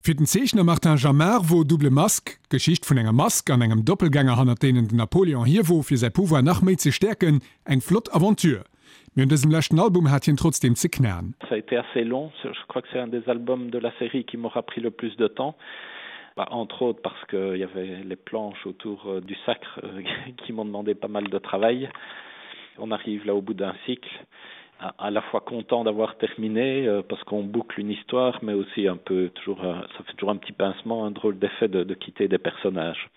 Fir den Zeechner Martin Jamard wor Double Masque d'Geschicht vun enger Mask an engem Doppelgänger hannert deenen den Napoléon hier wor fir säi Pouvoir nach méi ze stäerken, eng flott Aventure. Mee un dësem leschten Album hat hien trotzdeem ze knaen. Ça a été assez long, je crois que c'est un des albums de la série qui m'aura pris le plus de temps, entre autres parce qu'il y avait les planches autour du sacre qui m'ont demandé pas mal de travail. On arrive là au bout d'un cycle à la fois content d'avoir terminé euh, parce qu'on boucle une histoire mais aussi un peu toujours euh, ça fait toujours un petit pincement un drôle d'effet de, de quitter des personnages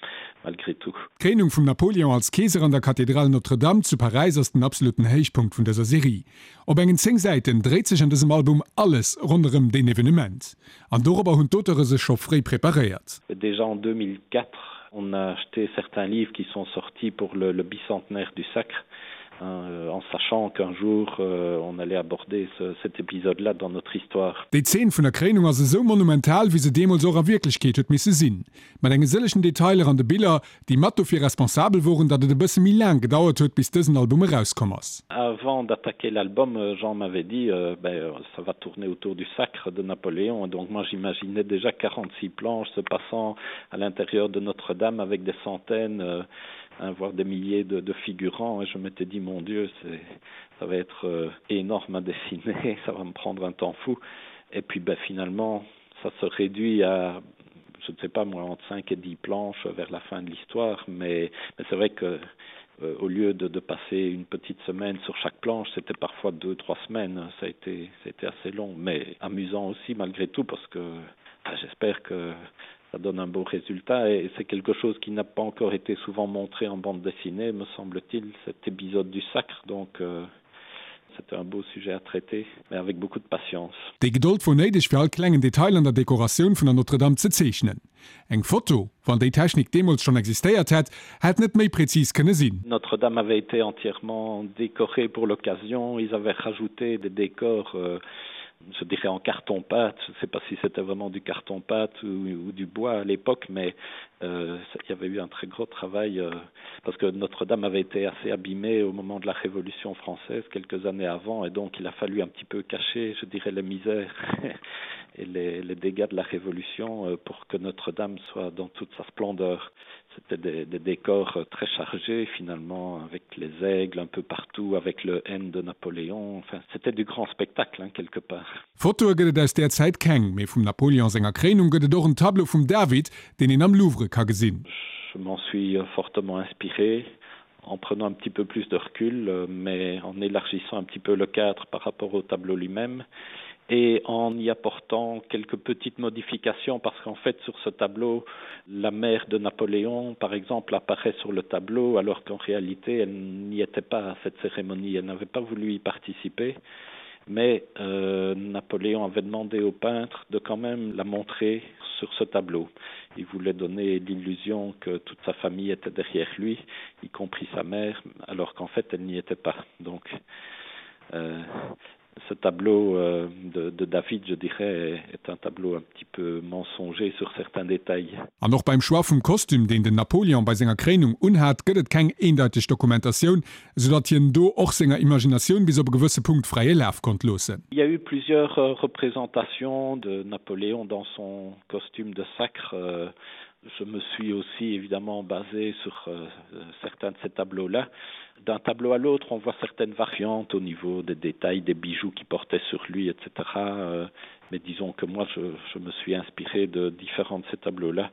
malgré tout. D'Kréinung vum Napoléon als Keeser an der Kathedral Notre-Dame zu Paräis ass den absoluten Héichpunkt vun dëser Serie. Op engen 10 Säiten dréit sech an dësem Album alles ronderëm deen Evenement. An dorobber hunn d'Auteure sech scho fréi preparéiert. Déjà en 2004, on a acheté certains livres qui sont sortis pour le, le bicentenaire du sacre euh, en sachant qu'un jour euh, on allait aborder ce, cet épisode là dans notre histoire. Déi Zeen vun der Kréinung ass esou monumental, wéi se deemools och a Wierklechkeet huet misse sinn. Mat enge sëllegen Detailer an de Biller, déi mat dofir responsabel woren, datt et e bësse méi laang gedauert huet, bis dësen Album erauskomm ass. Avant d'attaquer l'album, Jean m'avait dit euh, ben, ça va tourner autour du sacre de Napoléon. Donc moi j'imaginais déjà 46 planches se passant à l'intérieur de Notre-Dame avec des centaines euh, hein, voire des milliers de, de figurants et je m'étais dit mon Dieu, ça va être euh, énorme à dessiner, ça va me prendre un temps fou. Et puis ben, finalement, ça se réduit à je ne sais pas moi entre 5 et 10 planches vers la fin de l'histoire, mais, mais c'est vrai que euh, au lieu de, de passer une petite semaine sur chaque planche, c'était parfois deux trois semaines, ça a été, ça a été assez long, mais amusant aussi malgré tout parce que enfin, j'espère que ça donne un beau résultat et c'est quelque chose qui n'a pas encore été souvent montré en bande dessinée me semble-t-il cet épisode du sacre donc euh, c'était un beau sujet à traiter mais avec beaucoup de patience. Déi Gedold wor néideg fir all klengen Detail an der Dekoratioun vun der Notre-Dame ze zeechnen. Eng Foto, wann déi Technik deemools schonn existéiert hätt, hätt net méi präzis kënne sinn. Notre-Dame avait été entièrement décorée pour l'occasion, ils avaient rajouté des décors euh, je dirais en carton pâte, je ne sais pas si c'était vraiment du carton pâte ou, ou du bois à l'époque, mais euh, il y avait eu un très gros travail euh, parce que Notre-Dame avait été assez abîmée au moment de la Révolution française quelques années avant et donc il a fallu un petit peu cacher, je dirais les misères et les, les dégâts de la Révolution euh, pour que Notre-Dame soit dans toute sa splendeur. C'était des, des décors euh, très chargés finalement avec les aigles un peu partout, avec le N de Napoléon. Enfin, c'était du grand spectacle hein, quelque part. Fotoe gëtt et aus där Zäit keng, mee vum Napoléon senger Kréinung gëtt et och en Tableau vum David, deen een am Louvre ka gesinn. Je m'en suis fortement inspiré en prenant un petit peu plus de recul, euh, mais en élargissant un petit peu le cadre par rapport au tableau lui-même et en y apportant quelques petites modifications parce qu'en fait sur ce tableau la mère de Napoléon par exemple apparaît sur le tableau alors qu'en réalité elle n'y était pas à cette cérémonie elle n'avait pas voulu y participer mais euh, Napoléon avait demandé au peintre de quand même la montrer sur ce tableau. Il voulait donner l'illusion que toute sa famille était derrière lui, y compris sa mère, alors qu'en fait elle n'y était pas. Donc euh, ce tableau euh, de, de David, je dirais, est un tableau un petit peu mensonger sur certains détails. An och beim Choix vum Kostüm, deen den Napoleon bei senger Kréinung unhat, gëtt et keng eendeiteg Dokumentatioun, esou datt hien do och senger Imaginatioun bis op e gewësse Punkt fräie Laf konnt loossen. Il y a eu plusieurs euh, représentations de Napoléon dans son costume de sacre. Euh, je me suis aussi évidemment basé sur euh, certains de ces tableaux-là. D'un tableau à l'autre, on voit certaines variantes au niveau des détails des bijoux qui portaient sur lui, etc. Euh, mais disons que moi, je, je me suis inspiré de différents de ces tableaux-là.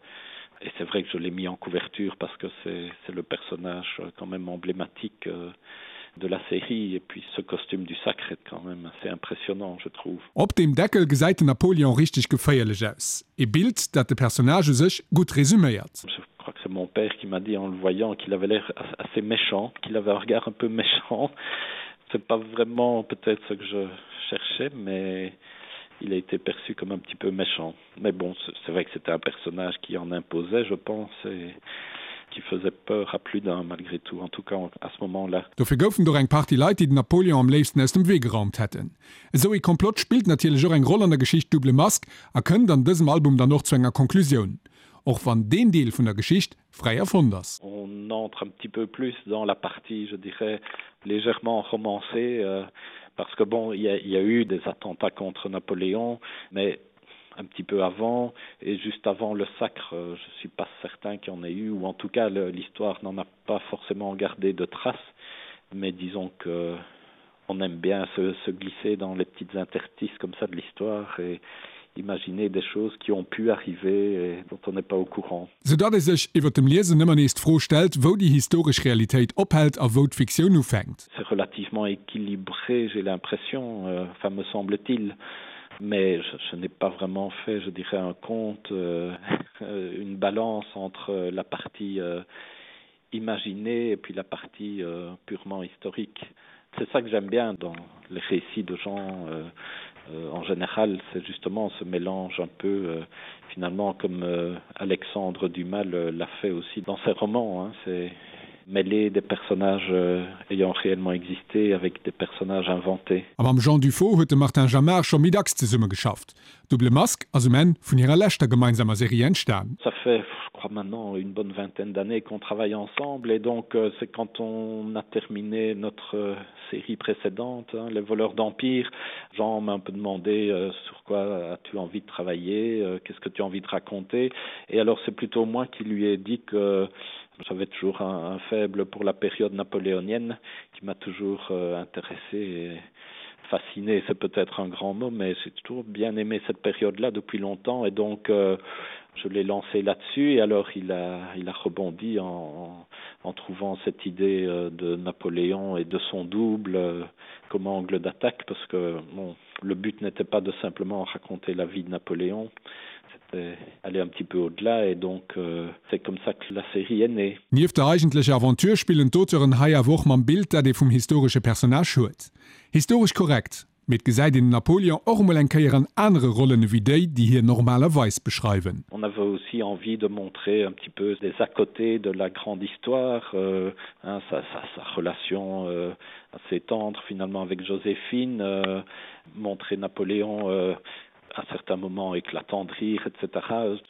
Et c'est vrai que je l'ai mis en couverture parce que c'est le personnage euh, quand même emblématique euh, de la série et puis ce costume du sacre est quand même assez impressionnant je trouve. Op dem Deckel gesäit den Napoleon richteg geféierlech aus. E Bild, dat de Personnage u sech gutt resuméiert. Je crois que c'est mon père qui m'a dit en le voyant qu'il avait l'air assez méchant, qu'il avait un regard un peu méchant. C'est pas vraiment peut-être ce que je cherchais, mais il a été perçu comme un petit peu méchant. Mais bon, c'est vrai que c'était un personnage qui en imposait, je pense, et qui faisait peur à plus d'un malgré tout, en tout cas à ce moment-là. Dofir goufen et och eng Partie Leit, déi den Napoleon am léifsten aus dem Wee geraumt hätten. Esou ee Komplott spillt natierlech och eng Roll an der Geschicht Double Masque a kënnt an dësem Album dann och zu enger Konklusioun, och wann deen Deel vun der Geschicht fräi erfonnt ass. On entre un petit peu plus dans la partie, je dirais, légèrement romancée, euh, parce que bon, il y, y a eu des attentats contre Napoléon, mais. un petit peu avant et juste avant le sacre, euh, je suis pas certain qu'il y en ait eu ou en tout cas l'histoire n'en a pas forcément gardé de traces mais disons que on aime bien se, se glisser dans les petites interstices comme ça de l'histoire et imaginer des choses qui ont pu arriver et dont on n'est pas au courant. Sou datt ee sech iwwer dem Liesen ëmmer nees d'Fro stellt, wou déi historesch Realitéit ophält a wou d'Fiktioun ufänkt. C'est relativement équilibré, j'ai l'impression, euh, enfin me semble-t-il, mais je, je n'ai pas vraiment fait, je dirais, un compte, euh, une balance entre la partie euh, imaginée et puis la partie euh, purement historique. C'est ça que j'aime bien dans les récits de gens euh, euh, en général, c'est justement ce mélange un peu euh, finalement comme euh, Alexandre Dumas l'a fait aussi dans ses romans hein, c'est mêler des personnages euh, ayant réellement existé avec des personnages inventés. A mam Jean Dufaux huet de Martin Jamar scho méi dacks zesummegeschafft. Double Masque ass um Enn vun hirer leschter gemeinsamer Serie entstan. Ça fait, je crois maintenant une bonne vingtaine d'années qu'on travaille ensemble et donc euh, c'est quand on a terminé notre euh, série précédente hein, les voleurs d'empire Jean m'a un peu demandé euh, sur quoi as-tu envie de travailler euh, qu'est-ce que tu as envie de raconter et alors c'est plutôt moi qui lui ai dit que j'avais toujours un, un faible pour la période napoléonienne qui m'a toujours euh, intéressé et fasciné c'est peut-être un grand mot mais j'ai toujours bien aimé cette période là depuis longtemps et donc euh, je l'ai lancé là-dessus et alors il a il a rebondi en, en trouvant cette idée euh, de Napoléon et de son double euh, comme angle d'attaque parce que bon le but n'était pas de simplement raconter la vie de Napoléon c'était aller un petit peu au-delà et donc euh, c'est comme ça que la série est née. Nieft der eigentlecher Aventure spillen d'Auteuren hei awer och mam Bild, dat ee vum historesche Personnage huet. Historesch korrekt, mee et gesäit een den Napoleon och emol eng Kéier an anere Rollen ewéi déi, déi hien normalerweis beschreiwen. On avait aussi envie de montrer un petit peu des à-côtés de la grande histoire, euh, hein, sa, sa, sa relation euh, assez tendre finalement avec Joséphine, euh, montrer Napoléon euh, à certains moments éclatant de rire, etc.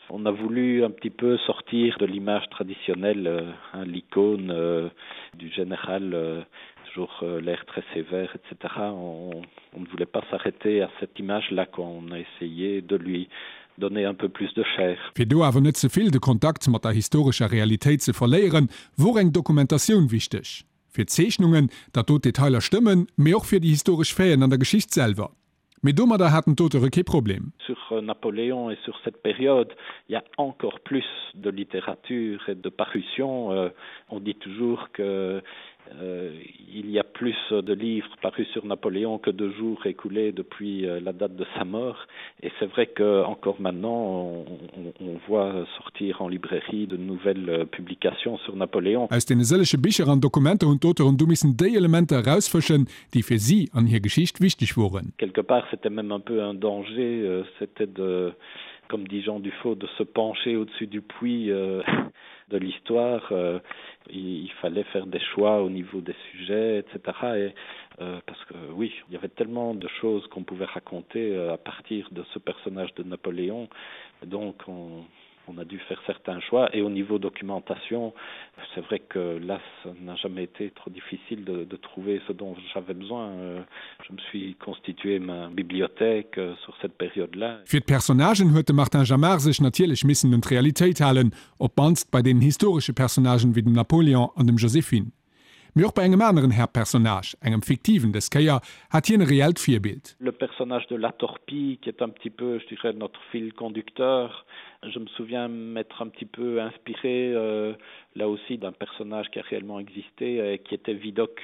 On a voulu un petit peu sortir de l'image traditionnelle, euh, l'icône euh, du général euh, toujours euh, l'air très sévère, etc. On, on ne voulait pas s'arrêter à cette image là qu'on a essayé de lui donner un peu plus de chair. Fir do awer net ze vill de Kontakt mat der historescher Realitéit ze verléieren, wor eng Dokumentatioun wichteg. Fir d'Zeechnungen, datt do d'Detailer stëmmen, mee och fir déi historesch Faiten an der Geschicht selwer. Mee domadder haten d'Auteure kee Problem. Sur euh, Napoléon et sur cette période, il y a encore plus de littérature et de parution. Euh, on dit toujours que euh, il y a plus de livres parus sur Napoléon que de jours écoulés depuis euh, la date de sa mort. Et c'est vrai que encore maintenant on, on, on voit sortir en librairie de nouvelles euh, publications sur Napoléon. Aus deene sëllege Bicher an Dokumenter hunn d'Auteuren du missen déi Elementer erausfëschen, déi fir si an hir Geschicht wichteg woren. Quelque part c'était même un peu un danger, euh, c'était de comme dit Jean Dufaux de se pencher au-dessus du puits euh, de l'histoire euh, il, il fallait faire des choix au niveau des sujets etc et euh, parce que oui il y avait tellement de choses qu'on pouvait raconter euh, à partir de ce personnage de Napoléon donc on on a dû faire certains choix et au niveau documentation c'est vrai que là ça n'a jamais été trop difficile de, de trouver ce dont j'avais besoin euh, je me suis constitué ma bibliothèque euh, sur cette période là Fir d'Personnagen huet de Martin Jamar sech natierlech missen un d'Realitéit halen, op d'mannst bei deenen historesche Personnagen wéi dem Napoléon an dem Joséphine. Mee och bei engem aneren Haaptpersonnage, engem fiktiven dës Kéier, hat hien e reellt Virbild. Le personnage de La Torpille qui est un petit peu, je dirais, notre fil conducteur, je me souviens m'être un petit peu inspiré euh, là aussi d'un personnage qui a réellement existé et qui était Vidocq,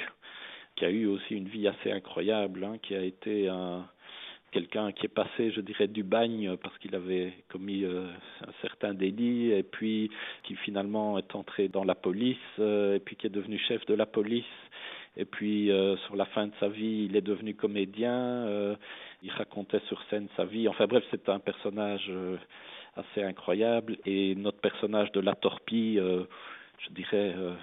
qui a eu aussi une vie assez incroyable, hein, qui a été un quelqu'un qui est passé je dirais du bagne parce qu'il avait commis euh, un certain délit et puis qui finalement est entré dans la police euh, et puis qui est devenu chef de la police et puis euh, sur la fin de sa vie il est devenu comédien euh, il racontait sur scène sa vie enfin bref c'est un personnage euh, assez incroyable et notre personnage de la torpille euh, je dirais euh,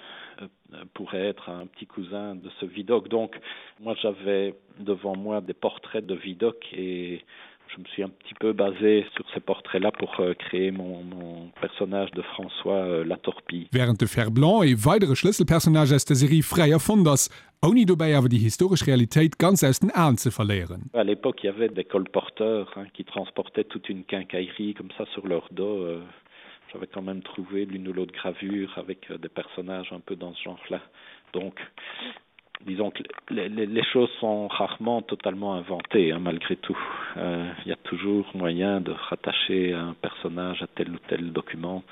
euh, pourrait être un petit cousin de ce Vidocq donc moi j'avais devant moi des portraits de Vidocq et je me suis un petit peu basé sur ces portraits là pour euh, créer mon, mon personnage de François euh, la Torpille. Während de Fer-Blanc, e weidere Schlësselpersonnage aus der Serie, fräi erfonnt ass. Ouni dobäi awer déi historesch Realitéit ganz aus den Aen ze verléieren. À l'époque, il y avait des colporteurs hein, qui transportaient toute une quincaillerie comme ça sur leur dos. Euh, J'avais quand même trouvé l'une ou l'autre gravure avec euh, des personnages un peu dans ce genre-là. Donc disons que les, les, les choses sont rarement totalement inventées hein, malgré tout. Euh, il y a toujours moyen de rattacher un personnage à tel ou tel document.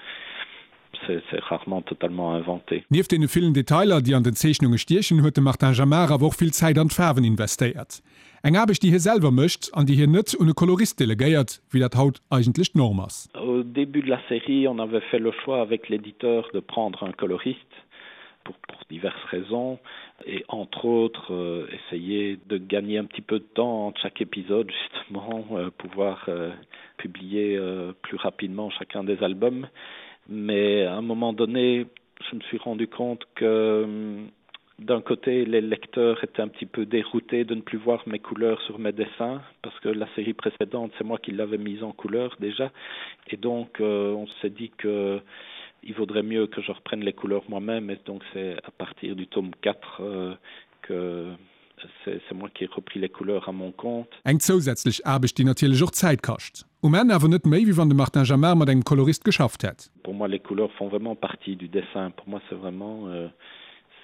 C'est rarement totalement inventé. Nieft deene villen Detailer, déi an den Zeechnunge stiechen, huet de Martin Jamar awer och vill Zäit an d'Faarwen investéiert. Eng Aarbecht, déi hie selwer mécht an déi hien net un e Kolorist delegéiert, wéi dat haut eigentlech d'Norm ass. Au début de la série, on avait fait le choix avec l'éditeur de prendre un coloriste pour, pour diverses raisons et entre autres euh, essayer de gagner un petit peu de temps entre chaque épisode justement euh, pouvoir euh, publier euh, plus rapidement chacun des albums. Mais à un moment donné, je me suis rendu compte que d'un côté, les lecteurs étaient un petit peu déroutés de ne plus voir mes couleurs sur mes dessins, parce que la série précédente, c'est moi qui l'avais mise en couleur déjà. Et donc, euh, on s'est dit que il vaudrait mieux que je reprenne les couleurs moi-même. Et donc, c'est à partir du tome 4 euh, que c'est moi qui ai repris les couleurs à mon compte. Eng zousätzlech Aarbecht, déi natierlech och Zäit kascht. Um Enn awer net méi, wéi wann de Martin Jamar mat engem Kolorist geschafft hätt. Pour moi, les couleurs font vraiment partie du dessin. Pour moi, c'est vraiment euh,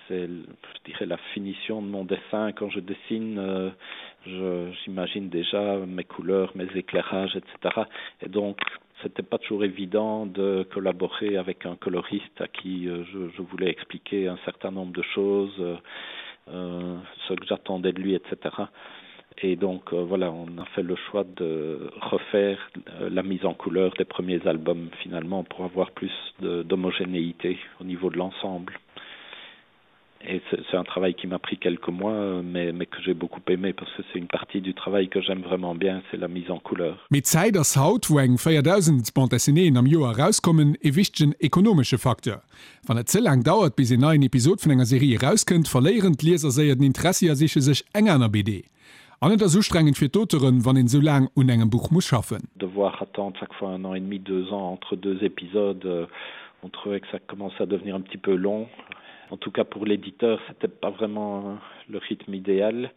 c'est, je dirais, la finition de mon dessin. Quand je dessine, euh, j'imagine déjà mes couleurs, mes éclairages, etc. Et donc, c'était pas toujours évident de collaborer avec un coloriste à qui euh, je, je voulais expliquer un certain nombre de choses, euh, euh, ce que j'attendais de lui, etc. Et donc euh, voilà, on a fait le choix de refaire euh, la mise en couleur des premiers albums finalement pour avoir plus d'homogénéité au niveau de l'ensemble. Et c'est un travail qui m'a pris quelques mois, mais, mais que j'ai beaucoup aimé parce que c'est une partie du travail que j'aime vraiment bien, c'est la mise en couleur. Mee d'Zäit ass haut, wou eng 4.000 Bande dessinéeën am Joer erauskommen, e wichtegen ekonomesche Facteur. Wann et ze laang dauert, bis een neien Episod vun enger Serie erauskënnt, verléieren d'Lieser séier den Interessi a siche sech eng aner BD. An et ass ustrengend fir d'Auteuren, wann een esou laang un engem Buch muss schaffen. Devoir attendre chaque fois un an et demi, deux ans entre deux épisodes, on trouvait que ça commençait à devenir un petit peu long. En tout cas pour l'éditeur, c'était pas vraiment le rythme idéal.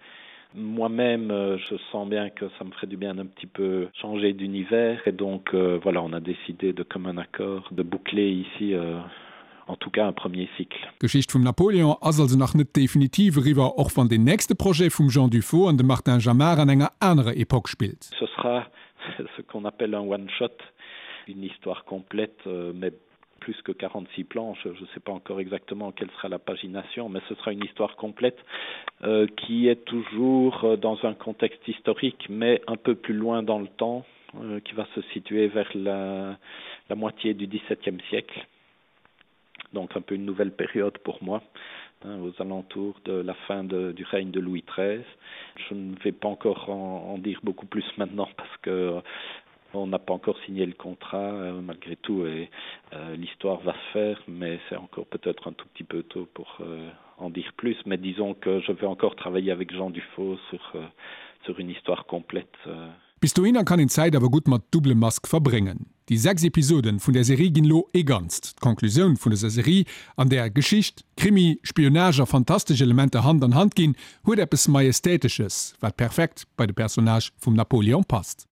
Moi-même, euh, je sens bien que ça me ferait du bien d'un petit peu changer d'univers et donc euh, voilà, on a décidé de commun accord de boucler ici euh, en tout cas un premier cycle. D'Geschicht vum Napoléon ass also nach net definitiv eriwwer, och wann deen nächste Projet vum Jean Dufaux an dem Martin Jamar an enger anerer Epoque spillt. Ce sera ce qu'on appelle un one-shot, une histoire complète, euh, mais plus que 46 planches, je ne sais pas encore exactement quelle sera la pagination, mais ce sera une histoire complète euh, qui est toujours euh, dans un contexte historique, mais un peu plus loin dans le temps, euh, qui va se situer vers la, la moitié du XVIIe siècle. Donc un peu une nouvelle période pour moi, hein, aux alentours de la fin de, du règne de Louis XIII. Je ne vais pas encore en, en dire beaucoup plus maintenant parce que On n'a pas encore signé le contrat euh, malgré tout et euh, l'histoire va se faire, mais c'est encore peut-être un tout petit peu tôt pour euh, en dire plus. Mais disons que je vais encore travailler avec Jean Dufaux sur, euh, sur une histoire complète. Euh. Bis dohinner kann een d'Zäit awer gutt mat Double Masque verbréngen. Déi 6 Episoden vun der Serie ginn lo ee Ganzt. D'Conclusioun vun dëser Serie, an där Geschicht, Krimi, Spionage a fantastesch Elementer Hand an Hand ginn, huet eppes Majestätesches, wat perfekt bei de Personnage vum Napoleon passt.